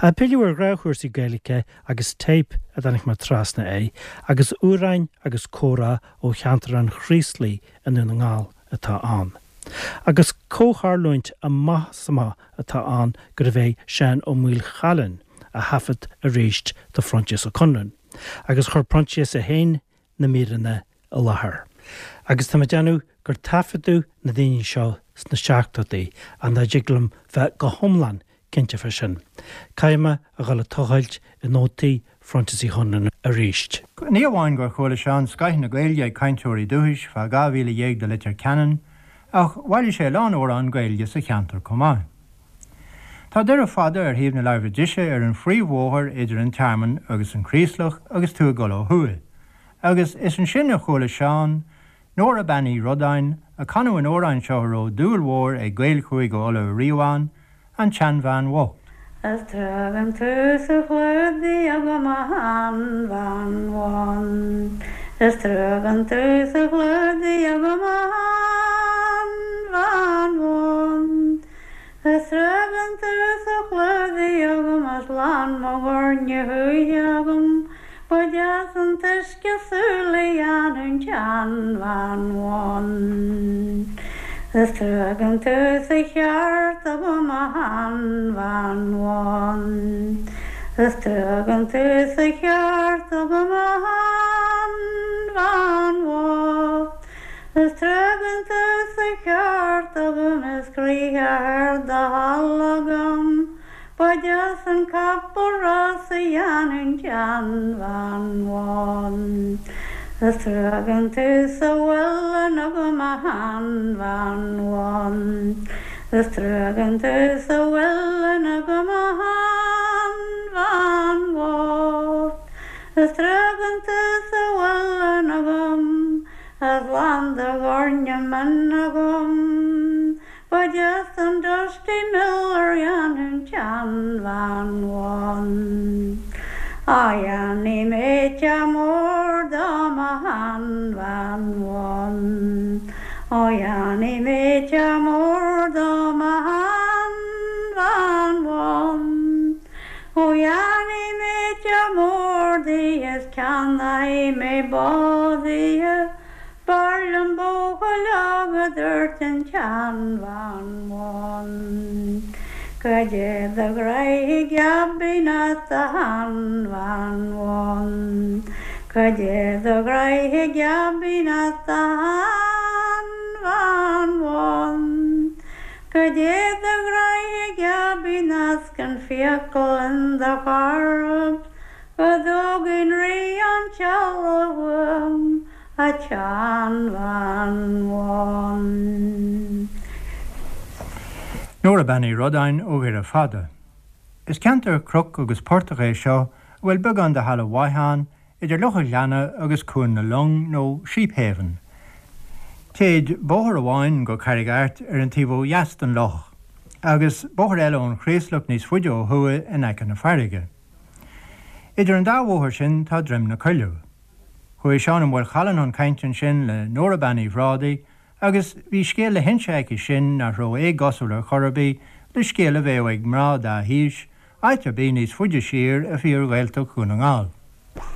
Ach pilleadh ar ghnáthchúrsaí Gaeilge agus téip a dtáinig mé trasna air agus amhráin agus comhrá ó cheantar an Chraoslaigh i nDún na nGall atá ann. Agus comhtharlúint amach is amach atá ann gurbh é Seán Ó Maolchallann a thaifead arís do Phroinsias Ó Conluain agus chuir Proinsias é féin na míreanna i láthair. Agus tá mé ag déanamh gur taifeadadh na daoine seo sna seachtóidí ach nach dtig liom bheith go hiomlán cinnte fá sin. Caithfidh mé a dhul ag tochailt i nótaí Phroinsias Uí Chonluain arís. Ní amháin gur chuala Seán scoith na Gaeilge ag cainteoirí dúchais feadh 12 mhíle de Leitir Ceanainn, ach bhailigh sé a lán amhrán Gaeilge sa cheantar chomh maith. Tá Doire Fada ar thaobh na láimhe deise ar an phríomhbhóthar idir an Tearmann agus an Chraoslach agus tú ag dul ó thuaidh, agus is ansin a chuala Seán Nóra Bean Uí Rodáin ag canadh an amhráin seo a raibh dúil mhór ag Gaeil Chúige Uladh ariamh ann, An tSeanbhean Bhocht. Is trua gan tú sa chlúdaigh agam a sheanbhean bhán Is trua gan tú sa chlúdaigh agam a sheanbhean bhán Is trua gan tú sa chlúdaigh agam is lán mo dhoirne thuaithe agam Ba deas an t-uisce súl a dhéanamh an tseanbhean bhán. Is trua gan tú sa cheárta agam a sheanbhean bhán. Is trua gan tú sa cheárta agam a sheanbhean bhocht. Is trua gan tú sa cheárta agam is croidhe ar do thoil agam. Ba deas an capall rása a dhéanamh an tseanbhean bhán. Is trua gan tú sa mhuileann agam a sheanbhean bhán. Is trua gan tú sa mhuileann agam a sheanbhean bhocht. Is trua gan tú sa mhuileann agam is lán do dhoirne mine agam. Ba deas an dusty miller a dhéanamh an tseanbhean bhán. Á dhéanfaidh mé teach mór dom a sheanbhean bhán. Ó dhéanfaidh mé teach mór dom a sheanbhean bhán. Ó dhéanfaidh mé teach mór di is ceannóidh mé bó di. B'fhearr liom buachaill óg a dúirt an tseanbhean bhán. Cad é do ghraidh geibín ort a sheanbhean bhán. Cad é do ghraidh geibín ort a sheanbhean bhán. Cad é do ghraidh geibín ort 's gan fiacail in do chorp. Go dtógainn rí an teallach uaim a tseanbhean bhán. Nóra Bean Uí Rodáin ó Dhoire Fada. Is ceantar cnoc agus portach é seo a bhfuil beagán de thalamh mhaith ann idir Loch an Ghleanna agus Cuan na Long nó Sheephaven. Téid bóthar amháin go Carraig Airt ar an taobh ó dheas den loch agus bóthar eile ón Chraoslach níos faide ó thuaidh in aice na farraige. Idir an dá bhóthar sin tá Droim na Coilleadh. Chuaigh Seán Ó Maolchallann chun cainte ansin le Nóra Bean Uí Bhrádaigh agus bhí scéal le hinse aici sin nach raibh éagosúil ar chor ar bith le scéal a bheadh ag mná dá haois áit ar bith níos faide siar i bhfíor-Ghaeltacht Dhún na nGall.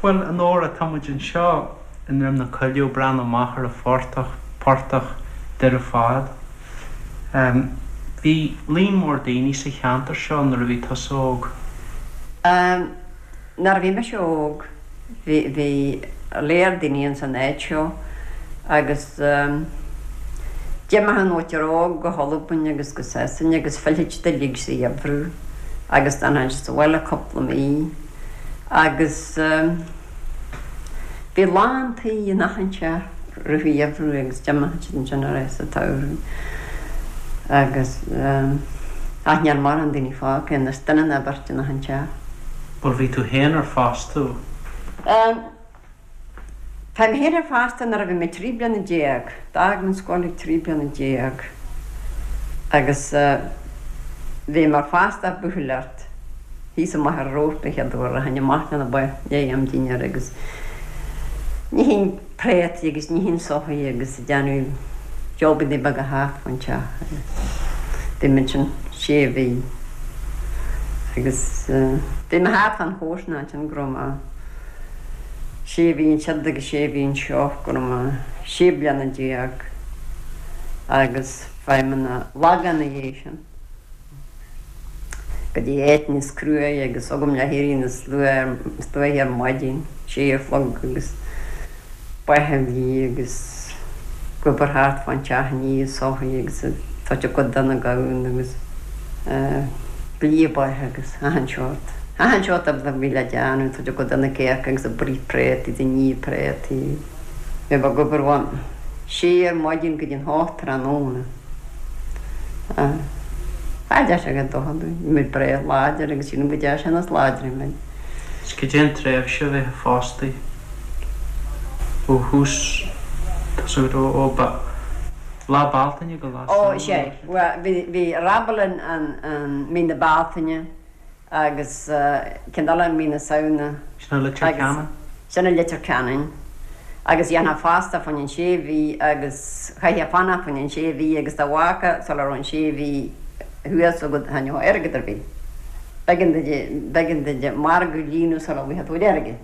Bhuel, a Nóra, tá muid anseo i nDroim na Coilleadh ag breathnú amach ar an phortach, portach Doire Fada. Bhí líon mór daoine sa cheantar seo nuair a bhí tusa óg. Nuair a bhí mise óg bhí, bhí léar daoine ins an áit seo agus d'imigh an mhuintir óg go hAlbain agus go Sasain agus phillfeadh siad uilig sa gheimhreadh agus d'fhanfadh siad sa bhaile cúpla mí agus bhí lán tí in achan teach i rith an gheimhridh agus d'imigh siad ansin ar ais sa tsamhradh agus ach níl mórán daoine fágtha anois, duine nó beirt in achan teach. Bhuel bhí tú féin ar fostú? Bhí mé féin ar fostú nuair a bhí mé 13 bliana. D'fhág mé an scoil ag 13 bliana agus bhí mé ar fostú buachailleacht thíos i Machaire Rabhartaigh an chéad uair a tháinig amach lena ba léi am dinnéar agus nífinn préataí agus nífinn soithí agus ag déanamh jobannaí beaga thart fán teach agus bhí mé ansin sé mhí. Agus bhí mé thart fán chomharsanacht ansin go raibh mé sé mhí ansiúd agus sé mhí anseo, go raibh mé 16 bliana agus fuair mé na Lagán ina dhiaidh sin. Go dtí áit níos cruaidhe agus agam le héirí níos luaithe ar maidin, sé a chlog agus ba a bhí agus ag obair thart fán teach ag ní soithí agus ag doirteadh cuid de na gamhna agus ag lí ba agus achan seort, achan seort oibre a bhí le déanamh, doirteadh cuid de na céacha agus ag bruith préataí, ag ní préataí. Bhí mé ag obair ón sé ar maidin go dtí an hocht tráthnóna. Tá deis agat dul chun dúinn. Bhí muid breá láidir agus sílim go dté sin is láidre muid. Is cad é an tréimhse a bheith fostaí ó thús, tá súil agam, ó Lá Bealtaine go Lá Ó, Samhna? sea. Bhuel, bhí, bhí Rabalin an, mí na Bealtaine agus ceann eile mí na Samhna. Sin i Leitir Ceanainn? Sin i Leitir Ceanainn. Agus dhéanfá fostú fá choinne an sé mhí agus chaithfeá fanacht fá choinne an sé mhí agus dá bhfágfá sula raibh an sé mhí thuas agat cha ngeofá airgead ar bith. B'éigean duit, b'éigean duit margadh a líonadh sula bhfaighfeá do chuid airgid.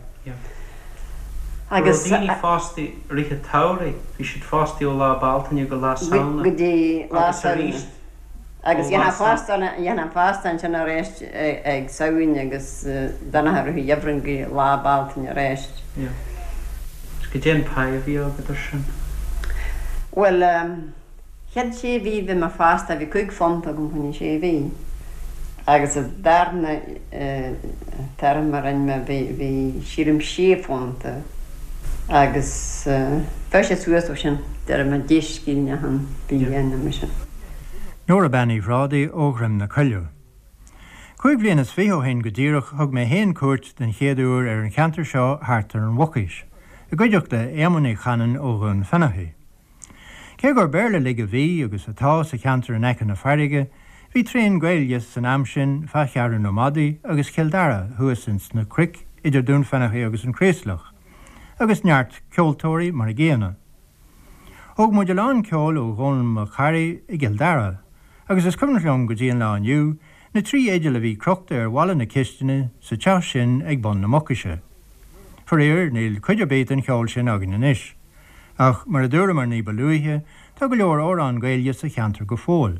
Agus. Raibh daoine fostaí i rith an tsamhraidh, bhí siad fostaí ó Lá Bealtaine go Lá Samhna. Go dtí Lá Samhna. Agus arís Agus dhéanfá fostú ansin arís ag Samhain agus d'fhanfá i rith an gheimhridh go Lá Bealtaine arís. Yeah. Is cad é an pá a bhí agat ar sin? Bhuel, chéad sé mhí bhí mé fostaithe, bhí £5 agam fá choinne sé mhí. Agus an darna téarma a rinne mé bhí, bhí sílim £6 agus bheadh sé suas ó sin, déarfaidh mé 10 scilling achan bhliain nó mar sin. Nóra Bean Uí Bhrádaigh ó Dhroim na Coilleadh. Chúig bhliana is fiche ó shin go díreach thug mé fhéin cuairt den chéad uair ar an cheantar seo thart ar an Mhucais, i gcuideachta Éamoinn Uí Chanainn ó Dhún Fionnachaidh. Cé gur Béarla uilig a bhí, agus atá, sa cheantar in aice na farraige, bhí tréan Gaeilge san am sin fá Cheathrú na Madaí agus Chill Dara thuas ins na cnoic idir Dún Fionnachaidh agus an Chraoslach, agus neart ceoltóirí mar a gcéanna. Thóg muid a lán ceoil ó Dhónall Mac Charraidh i gCill Dara, agus is cuimhneach liom go dtí an lá inniu na trí fhidil a bhí crochta ar bhalla na cistine sa teach sin ag bun na Mucaise. Faraor, níl cuid ar bith den cheol sin againn anois. Ach, mar a dúramar ní ba luaithe, tá go leor amhrán Gaeilge sa cheantar go fóill.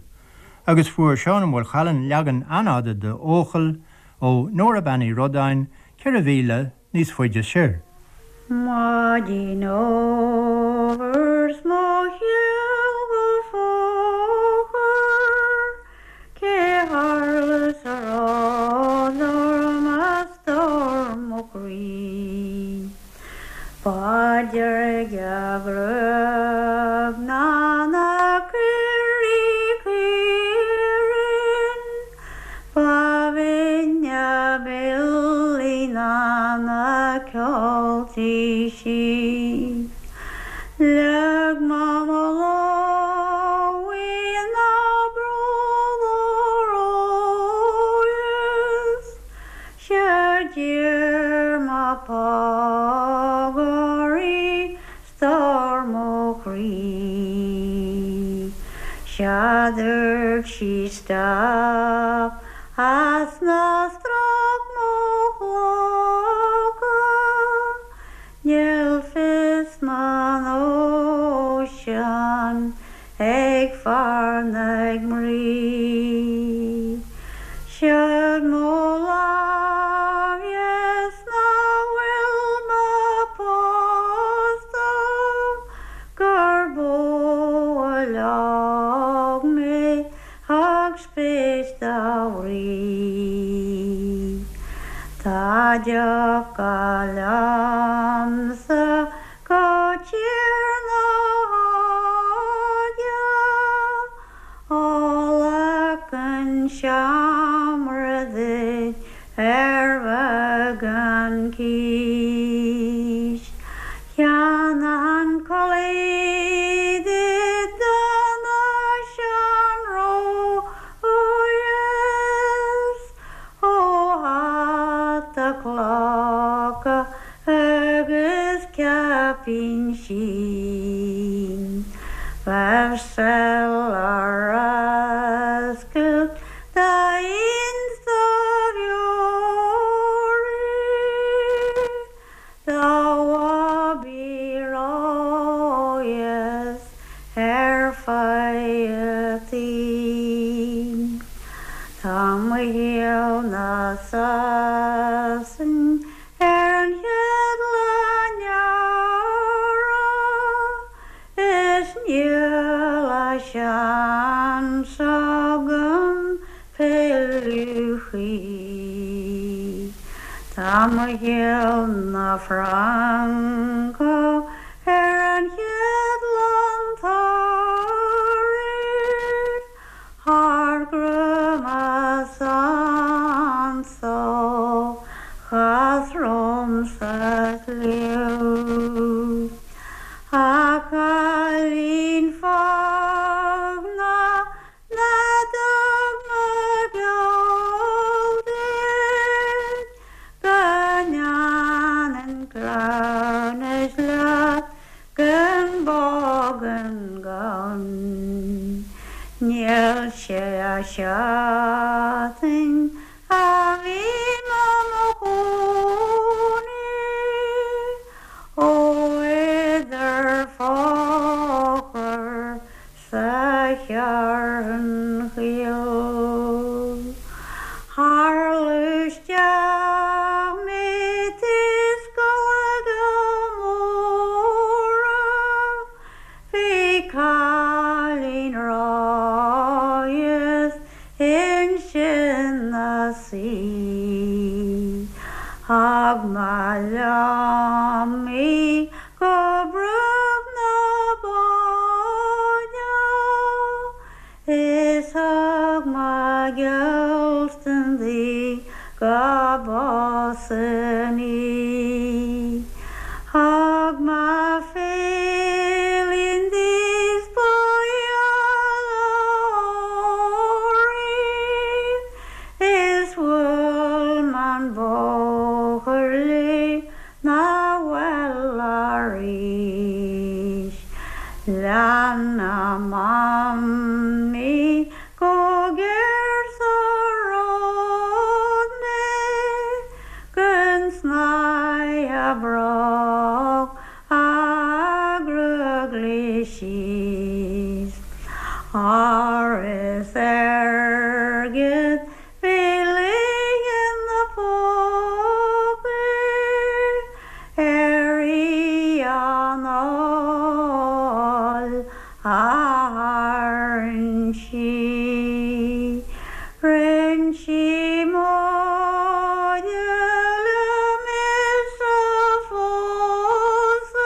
Agus fuair Seán Ó Maolchallann leagan an-fhada de 'Eochaill' ó Nóra Bean Uí Rodáin 4 mhíle níos faide soir. Maidin fhómhair 's mo sheal go fochair, cé tharla 's a raibh orm a stór mo chroí. Ba deirge a gruag ná na caoirigh caoirinn, Ba bhinne a billí ná na ceoltaí sí. Leag mé mo lámh ina bród is 'sea d'iarr mé póg uirthi stór mo chroí. Sea dúirt sí stop as ná strac mo chlocha, níl fios mo nóisean ag fear ná ag mnaoi. Siúd mo lámh dheas ná fuil mé pósta gur bó a leag mé thug spéis dá bhrí. Tá deoch liomsa go tír na hóige, ó an seomra duit ar bheagán cíos. Cheannaigh an culaith duit do na seanróis ó hata clocha agus caipín sín. Bheadh seal ar oscailt d'aon só Níl na Sasain ar an chéad lá Nóra is níl a seans agam pilleadh choíche. Tá mo ghiall 'na Francach ar an chéad long Toraí. Thar grúmas anso chas romham sa tsliabh. A chailín foghna ná dtug mo gheall duit go ndéanfainn cleamhnas leat Gan bó gan gamhain níl sé a seachtain a bhí mé mo chónaí ó idir Fochair sa Cheathrún Chaol. Tharla isteach mé taobh scoile móra bhí cailín ráidheas ansin 'na suí. Thug mé liom í go Bruach na Bóinne. Is thug mo gheallstan di go bpósfainn í. Thug mo féileann di 's ba gheal uirthi is bhuail m'an bóthar léi 'na bhaile arís. Lean a mamaí go géar sa ród mé gon snáithe breágh a gruag léi síos. Ór is airgead Bhí líon na pócaí ar í anáil a tharraing sí. Rinn sí móide liom is a phósadh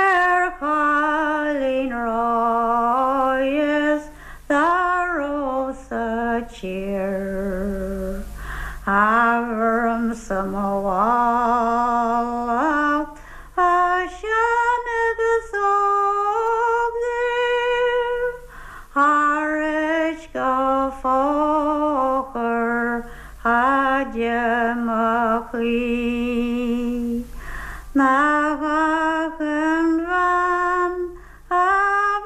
ar chailín ráidheas Dá raibh sa tír Abraham sa mo mhála a sean agus óg díobh thar éis go Fochair fhaide mo chroí nach achan bhean A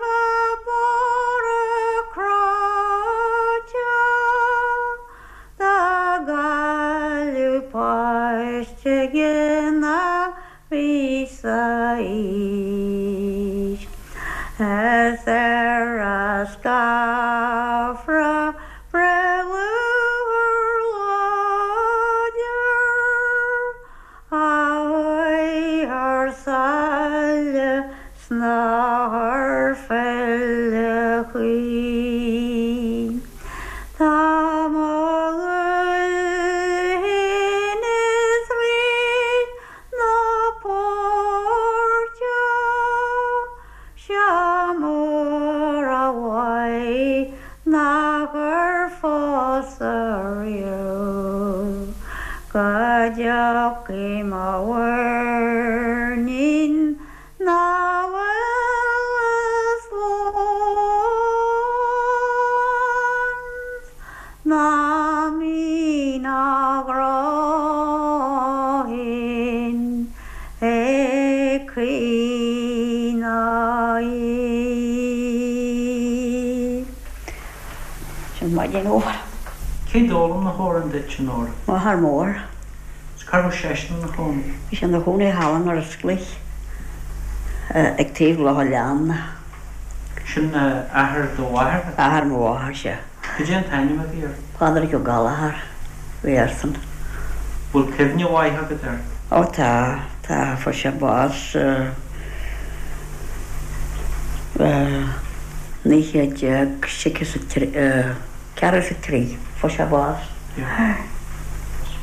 bheadh borradh cráite dá gcailleadh páiste ina bhí sa aois. Is ar a scáfra breith lúcháir láidir A chuaigh thar sáile 's nár phill a choíche. Tá mo dhúil féin is Rí na páirce seo mór a mhaith nachar phósadh riamh go dtiocfaidh mo mhuirnín 'na bhfuil a slán 's ná mín a ghrá féin ag caoineadh í. Sin maidin fhómhair. Cé d'fhoghlaim na hamhráin duit, a Nóra? M'athair mór. 'S cá raibh seisean ina chónaí? Bhí sé ina chónaí thall in Iorras ag taobh Loch a' Leanna. Sin athair do mháthar? Athair mo mháthar, sea. Cad é an t-ainm a bhí air? Pádraig Ó Gallchóir a bhí airsean. Bhfuil cuimhne mhaith agat air? Ó tá, tá, fuair sé bás 1943, 43, fuair sé bás.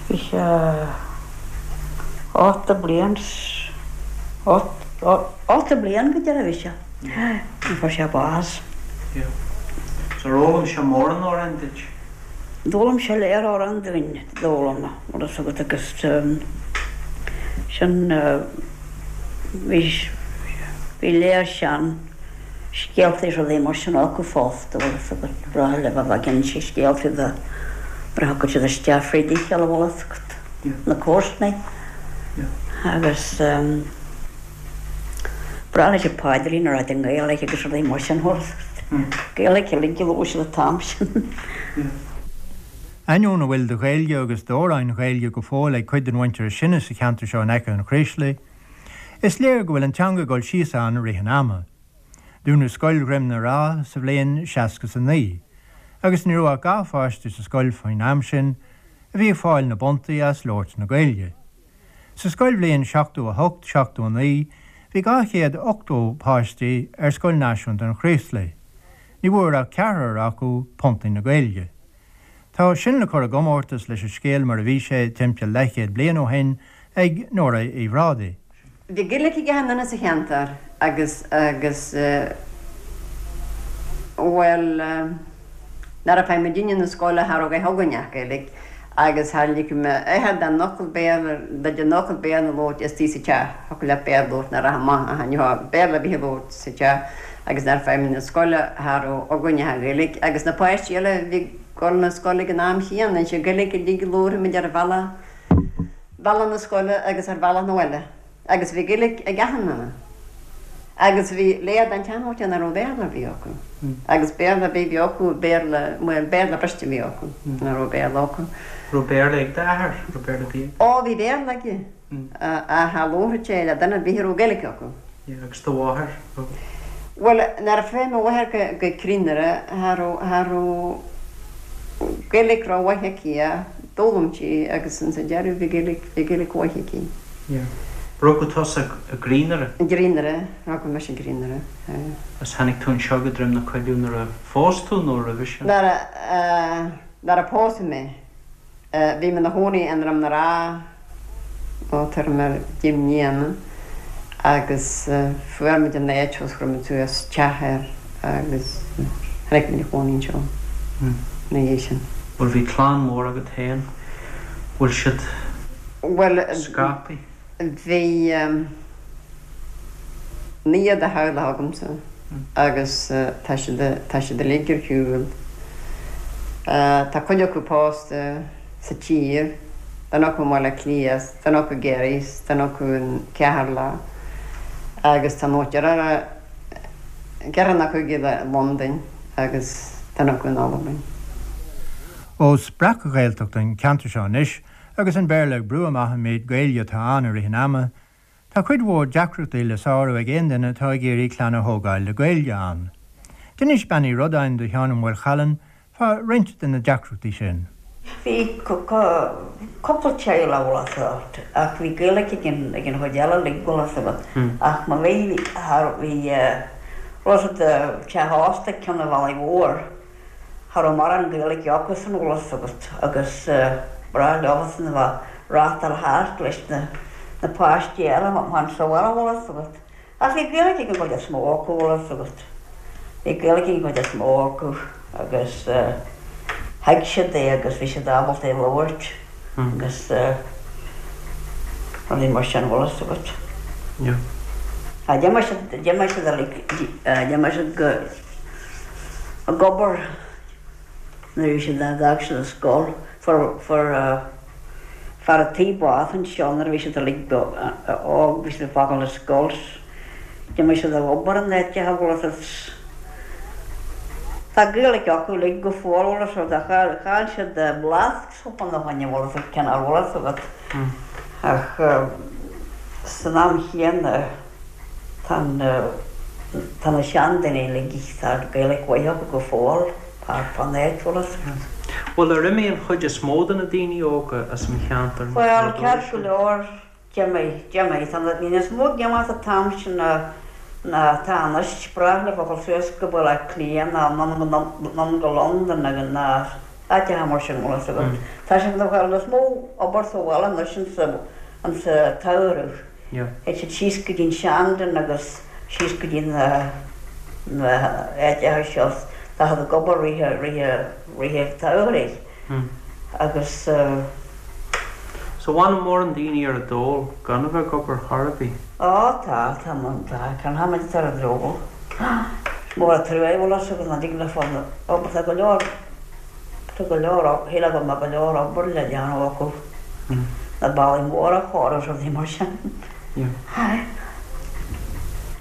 Bhí sé 80 bliain, 80 bliain go deireadh a bhí sé nuair a fuair sé bás. So ar fhoghlaim sé mórán amhrán duit? D'fhoghlaim sé lear amhrán dúinn, d'fhoghlaim, bhfuil fhios agat agus sin bhí, bhí lear sean scéaltaí is rudaí mar sin acu fosta, bhfuil fhios agat, ba bhreá leo a bheith ag inse scéaltaí de nuair a thiocfadh siad isteach fríd a chéile, bhfuil fhios agat, na comharsanaí agus ba bhreá leis an paidrín a rá i nGaeilge agus rudaí mar sin, bhfuil fhios agat, Gaeilge uilig a labhair siad an t-am sin. Ainneoin a bhfuil de Ghaeilge agus d'amhráin Ghaeilge go fóill ag cuid den mhuintir is sine sa cheantar seo in aice an Chraoslaigh, Is léir go bhfuil an teanga ag dul síos ann i rith an ama. Dúnadh Scoil Dhroim na Rá sa bhliain 69, agus ní raibh ach 2 pháiste sa scoil faoin am sin a bhí ag fáil na bpuntaí as labhairt na Gaeilge. Sa scoilbhliain 78, 79 bhí 280 páistí ar Scoil Náisiúnta an Chraoslaigh. Ní bhfuair ach ceathrar acu puntaí na Gaeilge. Tá sin le cur i gcomórtas leis an scéal mar a bhí sé timpeall leathchéad bliain ó shin ag Nóra Uí Bhrádaigh. Bhí Gaeilge ag achan duine sa cheantar agus, agus, bhuel, nuair a fuair muidinne na scoile cha raibh a dhath againn ach Gaeilge agus char lig m'athair don fhocal Béarla, den fhocal Béarla a labhairt istigh sa teach, thiocfadh leat Béarla a labhairt nuair a rachfá amach ach ní raibh Béarla ar bith a labhairt sa teach agus nuair a fuair muid na scoile cha raibh againn ach an Ghaeilge agus na páistí eile a bhí ag dul na scoile ag an am chéanna, is í an Ghaeilge uilig a labharfadh muid ar bhealach, bealach na scoile agus ar bhealach na bhaile agus bhí Gaeilge ag achan duine agus bhí lear den tseanmhuintir nach raibh Béarla ar bith acu agus Béarla ar bith a bhí acu, Béarla, bhuel Béarla briste a bhí acu, nach raibh Béarla acu. Raibh Béarla ag d'athair? Raibh Béarla ar bith aige? Ó bhí Béarla aige. Ach cha labharfadh sé le duine ar bith a raibh Gaeilge acu. Yeah, agus do mháthair? Bhuel, nuair a fuair mo mháthair go Crinaire, cha raibh, cha raibh Gaeilge rómhaith aici ach d'fhoghlaim sí agus ins an deireadh bhí Gaeilge, bhí Gaeilge mhaith aici. Yeah. Rugadh tusa i gCrinaire? I gCrinaire, rugadh mise i gCrinaire, yeah. Agus tháinig tú anseo go Droim na Coilleadh nuair a phós tú nó roimhe sin? Nuair a, nuair a pósadh mé. Bhí mé ina chónaí i nDroim na Rá ó tuairim ar 10 mbliana agus fuair muid an áit thuas, chuir muid suas teach air agus tháinig muid a chónaí anseo ina dhiaidh sin. Bhuel bhí clann mhór agat féin, bhfuil siad scaipthe? Bhuel bhí naonúr de theaghlach agamsa agus tá siad, tá siad uilig ar shiúl. Tá cuid acu pósta sa tír, duine acu i mBaile Átha Cliath, duine acu i gCiarraí, duine acu in Ceatharlach agus tá nó deartháir, ceathrar nó cúigear i Londain agus duine acu in Albain. Ós breac-Ghaeltacht an ceantar seo anois agus an Béarla ag brú amach an méid Gaeilge atá ann i rith an ama, Tá cuid mhór deacrachtaí le sárú ag aon duine atá ag iarraidh clann a thógáil le Gaeilge ann. D'inis Bean Uí Rodáin do Sheán Ó Maolchallann fá roinnt de na deacrachtaí sin. Bhí cúpla teaghlach bhfuil fhios agat ach bhí Gaeilge ag an ag an chuid eile uilig bhfuil fhios agat ach má bhí bhí bhfuil fhios agat teach ósta ag Ceann an Bhealaigh Mhóir Cha raibh mórán Gaeilge acusan bhfuil fhios agat agus ba bhreá leofasan a bheith reáchtáil thart leis na na páistí eile amach sa bhaile bhfuil fhios agat. Ach bhí Gaeilge ag an gcuid is mó acu bhfuil fhios agat. Bhí Gaeilge ag an gcuid is mó acu agus thuig siad é agus bhí siad ábalta é a labhairt agus rudaí mar sin bhfuil fhios agat. Yeah. D'imigh siad, d'imigh siad uilig, d'imigh siad go. ag obair nuair a bhí siad d'fhág siad an scoil. Fuair fuair fear a' tí bás anseo nuair a bhí siad uilig óg, bhí siad ag fágáil an scoil. D'imigh siad ag obair in áiteacha bhfuil fhios agat. Tá Gaeilge acu uilig go fóill bhfuil fhios agat ach chaill siad blas cúpla ó shin bhfuil fhios agat cineál bhfuil fhios agat ach san am chéanna tá na tá na seandaoine uilig tá Gaeilge mhaith acu go fóill. Fán áit, bhfuil fhios agat. Bhuel, ar imigh an chuid is mó de na daoine óga as an cheantar Bhuel, ceart go leor, d'imigh, d'imigh. Tá na, bhí níos mó ag imeacht an t-am sin ná, ná atá anois. B'ghnách leo a dhul suas go Baile Átha Cliath ná anonn go Londain agus ná áiteacha mar sin, bhfuil fhios agat. Tá siad ag fáil níos mó obair sa bhaile anois insa, insa tsamhradh. Théid siad síos go dtí an Seandún agus síos go dtí na na háiteacha seo tá siad ag obair rith rith rith an tsamhraidh agus. So bhfanann mórán daoine ar an dól gan a bheith ag obair chor ar bith? Á tá, tá tá, can tháimid ar an dól. Is mór an trua é bhfuil fhios agat nach dtig leofa obair tá go leor Tá go leor, shílfeá go mbeadh go leor obair le déanamh acu, na ballaí móra a chóiriú is rudaí mar sin.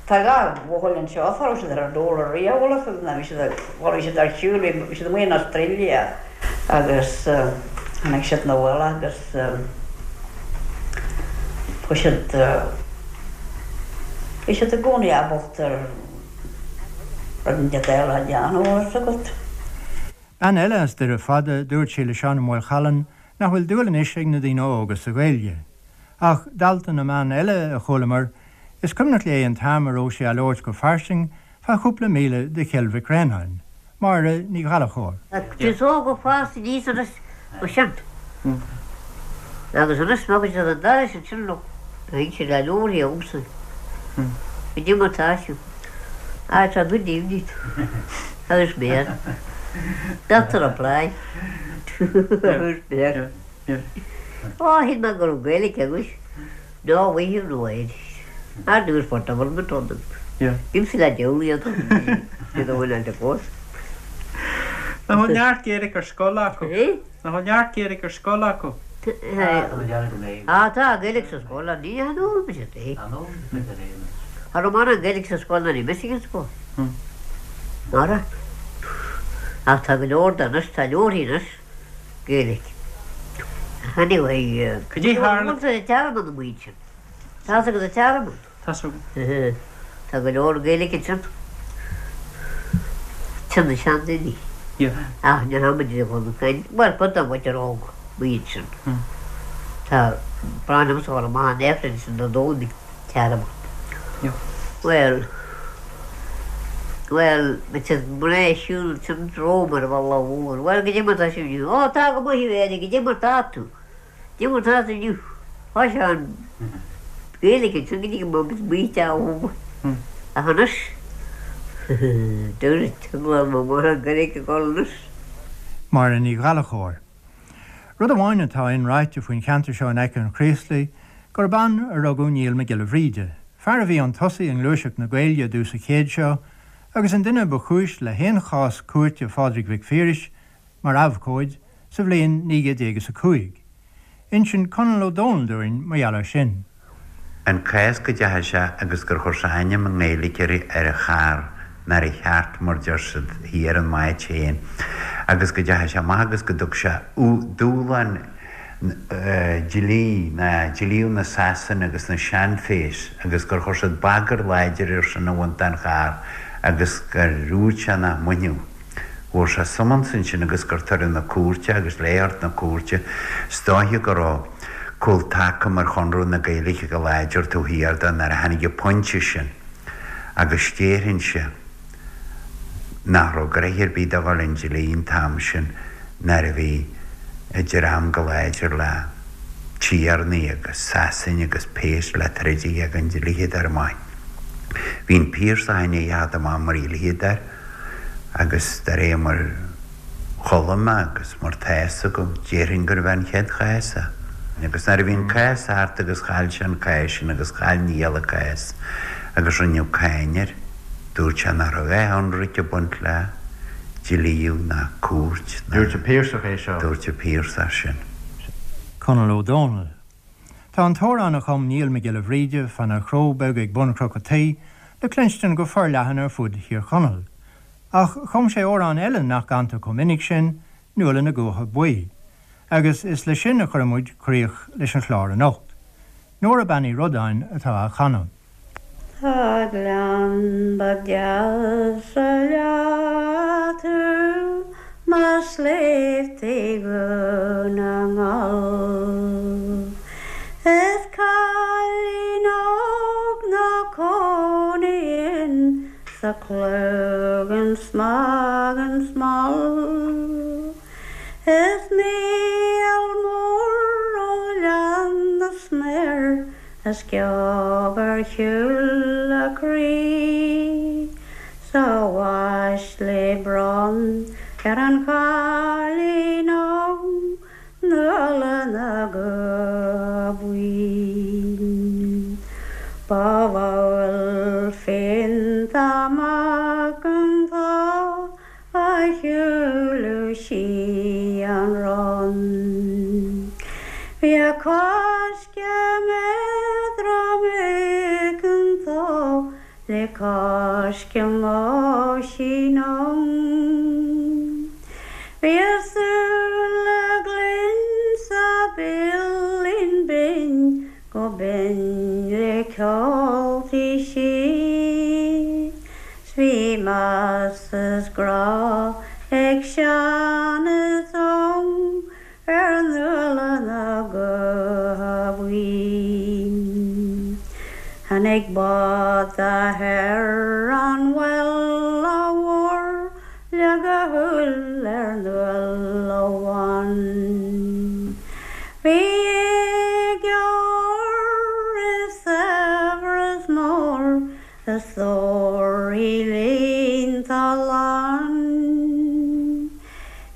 Tá dhá bhuachaill anseo, cha raibh siad ar an dól ariamh, bhfuil fhios agat, ná bhí siad, bhuel bhí siad ar shiúl, bhí siad amuigh in Australia agus tháinig siad 'na bhaile agus chuaigh siad, bhí siad i gcónaí ábalta rud inteacht eile a dhéanamh, bhfuil fhios agat. Bean eile as Doire Fada, dúirt sí le Seán Ó Maolchallann nach bhfuil dúil anois ag na daoine óga sa Ghaeilge. Ach dalta na mban eile a chualamar, is cuimhneach léi an t-am a raibh sí á labhairt go fairsing fá chúpla míle de Chill Mhic Réanáin. Máire Ní Ghallchóir. Is óg ó fás aníos anois ó sin. Agus anois má bhí siad an dara sin sin leo, bheadh siad le leabharthaí agamsa. Goidé mar tá siad. Ah, tá good evening. Agus mé. Doctor reply. Agus mé. Ó, shíl mé go raibh Gaeilge agat. No, we have no Irish. Ar dtús for government on them. Bímse le diabhal iad iad a bhfuil an fós. Nach bhfuil neart Gaeilge ar scoil acu? Nach bhfuil neart Gaeilge ar scoil acu? Á tá Gaeilge sa scoil ach ní fhoghlaim siad é. Cha raibh mórán Gaeilge sa scoil nuair a bhí mise ag an scoil. Mara. Ach tá go leor de anois, tá leabharthaí anois Gaeilge. Anyway, Cad é tharla? Bhfuil an Tearmann amuigh ansin? Tá fhios agat an Tearmann? Tá fhios agam. Tá go leor Gaeilge ansin. Sin na seandaoine. Ach ní raibh muid ag dul ag caint, bhuel cuid den mhuintir óg amuigh ansin. Tá brand liomsa a dhul amach an Aifreann sin do Dhomhnaigh Tearmann. Bhuel, bhuel, bhí siad mná ag siúl ansin romham ar an bhealach mhór. Bhuel, goidé mar tá sibh inniu? Ó, tá go maith, a Mhéirí, goidé mar tá tú? Goidé mar tá tú inniu. Thoisigh an Ghaeilge ansin go dtí go mbeadh muid amuigh ann. Ach anois, dúirt an mháthair an Ghaeilge ag dul anois. Máire Ní Ghallchóir. Rud amháin atá inráite faoin cheantar seo in aice an Chraoslaigh, gurb ann a rugadh Niall Mac Giolla Bhríde, fear a bhí 'un tosaigh i ngluaiseacht na Gaeilge i dtús an chéid seo agus an duine ba chúis le haon chás cúirte Phádraig Mhic Phiarais mar abhcóid sa bhliain 1905. Insíonn Conall Ó Dónaill dúinn mar gheall air sin. An cás go dteachaigh sé agus gur chuir sé ainm i nGaeilge ar an charr nár cheart mar deir siad thiar in m'áit féin agus go dteachaigh sé amach agus go dtug sé dúshlán dlí ná dlíodh na Sasana agus na seanphéas agus gur chuir siad bagar láidir air sin a bhaint den charr agus gur dhúirt sé nach mbainfeadh. Fuair sé summons ansin agus gur tugadh 'na cúirte agus le theacht 'na cúirte is dóiche go raibh cúl taca mar Chonradh na Gaeilge go láidir taobh thiar de nuair a tháinig an pointe sin agus déarfainnse nach raibh gnoithe ar bith do dhul 'un dlí an t-am sin nuair a bhí an dream go láidir le tiarnaí agus Sasain agus péas le troid a dhéag an dlíodóir maith. Bhí an Piarsach i ndiaidh a theacht amach mar dhlíodóir. Agus de réir mar chuala mé agus mar tá fhios agam, déarfainn gurbh é an chéad chás é. Agus nuair a bhí an cás thart agus chaill sé an cás sin agus chaill Niall an cás agus rinneadh cáin air, dúirt sé nach raibh aon ionraic ag baint le dlíodh ná cúirt ná. Dúirt an Piarsach é seo. Dúirt an Piarsach sin. Conall Ó Dónaill. Tá an t-amhrán a chum Niall Mac Giolla Bhríde fána chró beag ag bun Chnoc a' Tí le cluinstin go forleathan ar fud Thír Chonaill. Ach chum sé amhrán eile nach gcantar chomh minic sin, Nuala na gCuacha Buí. Agus is leis sin a chuirfidh muid críoch leis an chlár anocht. Nóra Bean Uí Rodáin atá á chanadh. Tá gleann ba deasa leat tú. Mar sléibhte Dhún na nGall. Is cailín óg 'na cónaí sa Chloigeann Smagan Small. Is Mícheál Mór ó Ghleann na Sméar a sciob ar shiúl a croí. 'S a uaisle bronn ar an chailín óg Nuala na gCutha Buí. Ba mhall féin amach an tá a shiúladh sí an run. Bhí a coiscéim éadrom aiceanta Le coiscéim Oisín Óg. Bhí a súile glinn 's a béilín binn go binn le ceol tí sí. 'S bhí meas is grá ag sean is óg Ar Nuala na gCutha Buí. Tháinig bád ar an Mhuile Mhór, leag a shúil ar Nuala Bhán. Bhí éide óir is saibhreas mór A stór í líonta lán.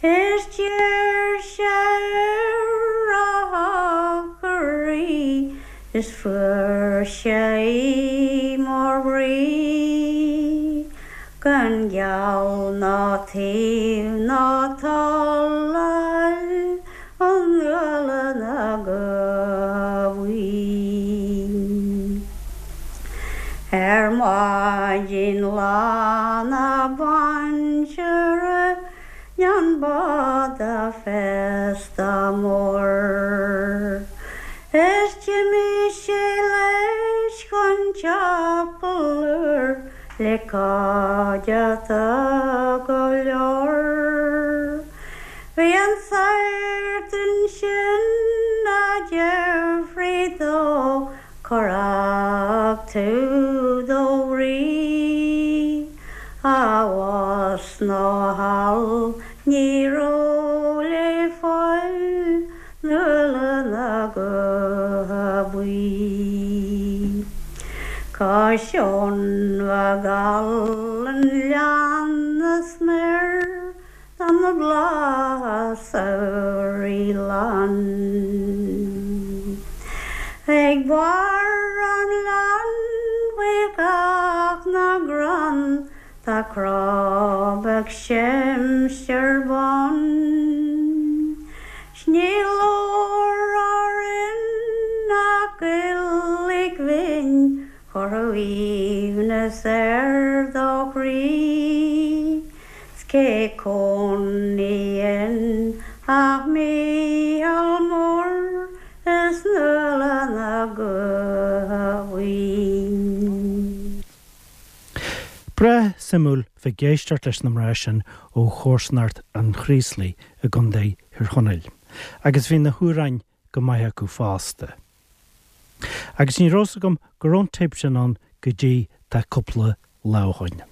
Is d'iarr sé ar a shochar í is fuair sé í mar bhrí. Gan geall ná taobh ná toil a fháil ó Nuala na gCutha Buí. Ar maidin lá na bainse rinne an bád féasta mór. Is d'imigh sé leis chun teampaill úr le cuideachta go leor. Bhí an sagart ansin a d'fhiafraigh dó Cár fhág tú do bhrí? Abhus nó thall ní raibh le fáil Nuala na gCutha Buí. Cois Abhann Mhac an Ghleanna smior Tá na blátha samhraidh lán. Ag barr an ghleann faoi chábh na gcrann tá crobh ag seimstear bán. 'S ní leor orainn ach Gaeilge bhinn chuirfeadh aoibhneas ar do chroí. 'S cé cónaíonn ach Mícheál Mór is Nuala na gCutha Buí. Breá suimiúil bheith ag éisteacht leis na mná sin ó chomharsanacht an Chraoslaigh i gContae Thír Chonaill. Agus bhí na hamhráin go maith acu fosta. Agus ní raibh 's agam go raibh an téip sin ann go dtí tá cúpla lá ó shoin.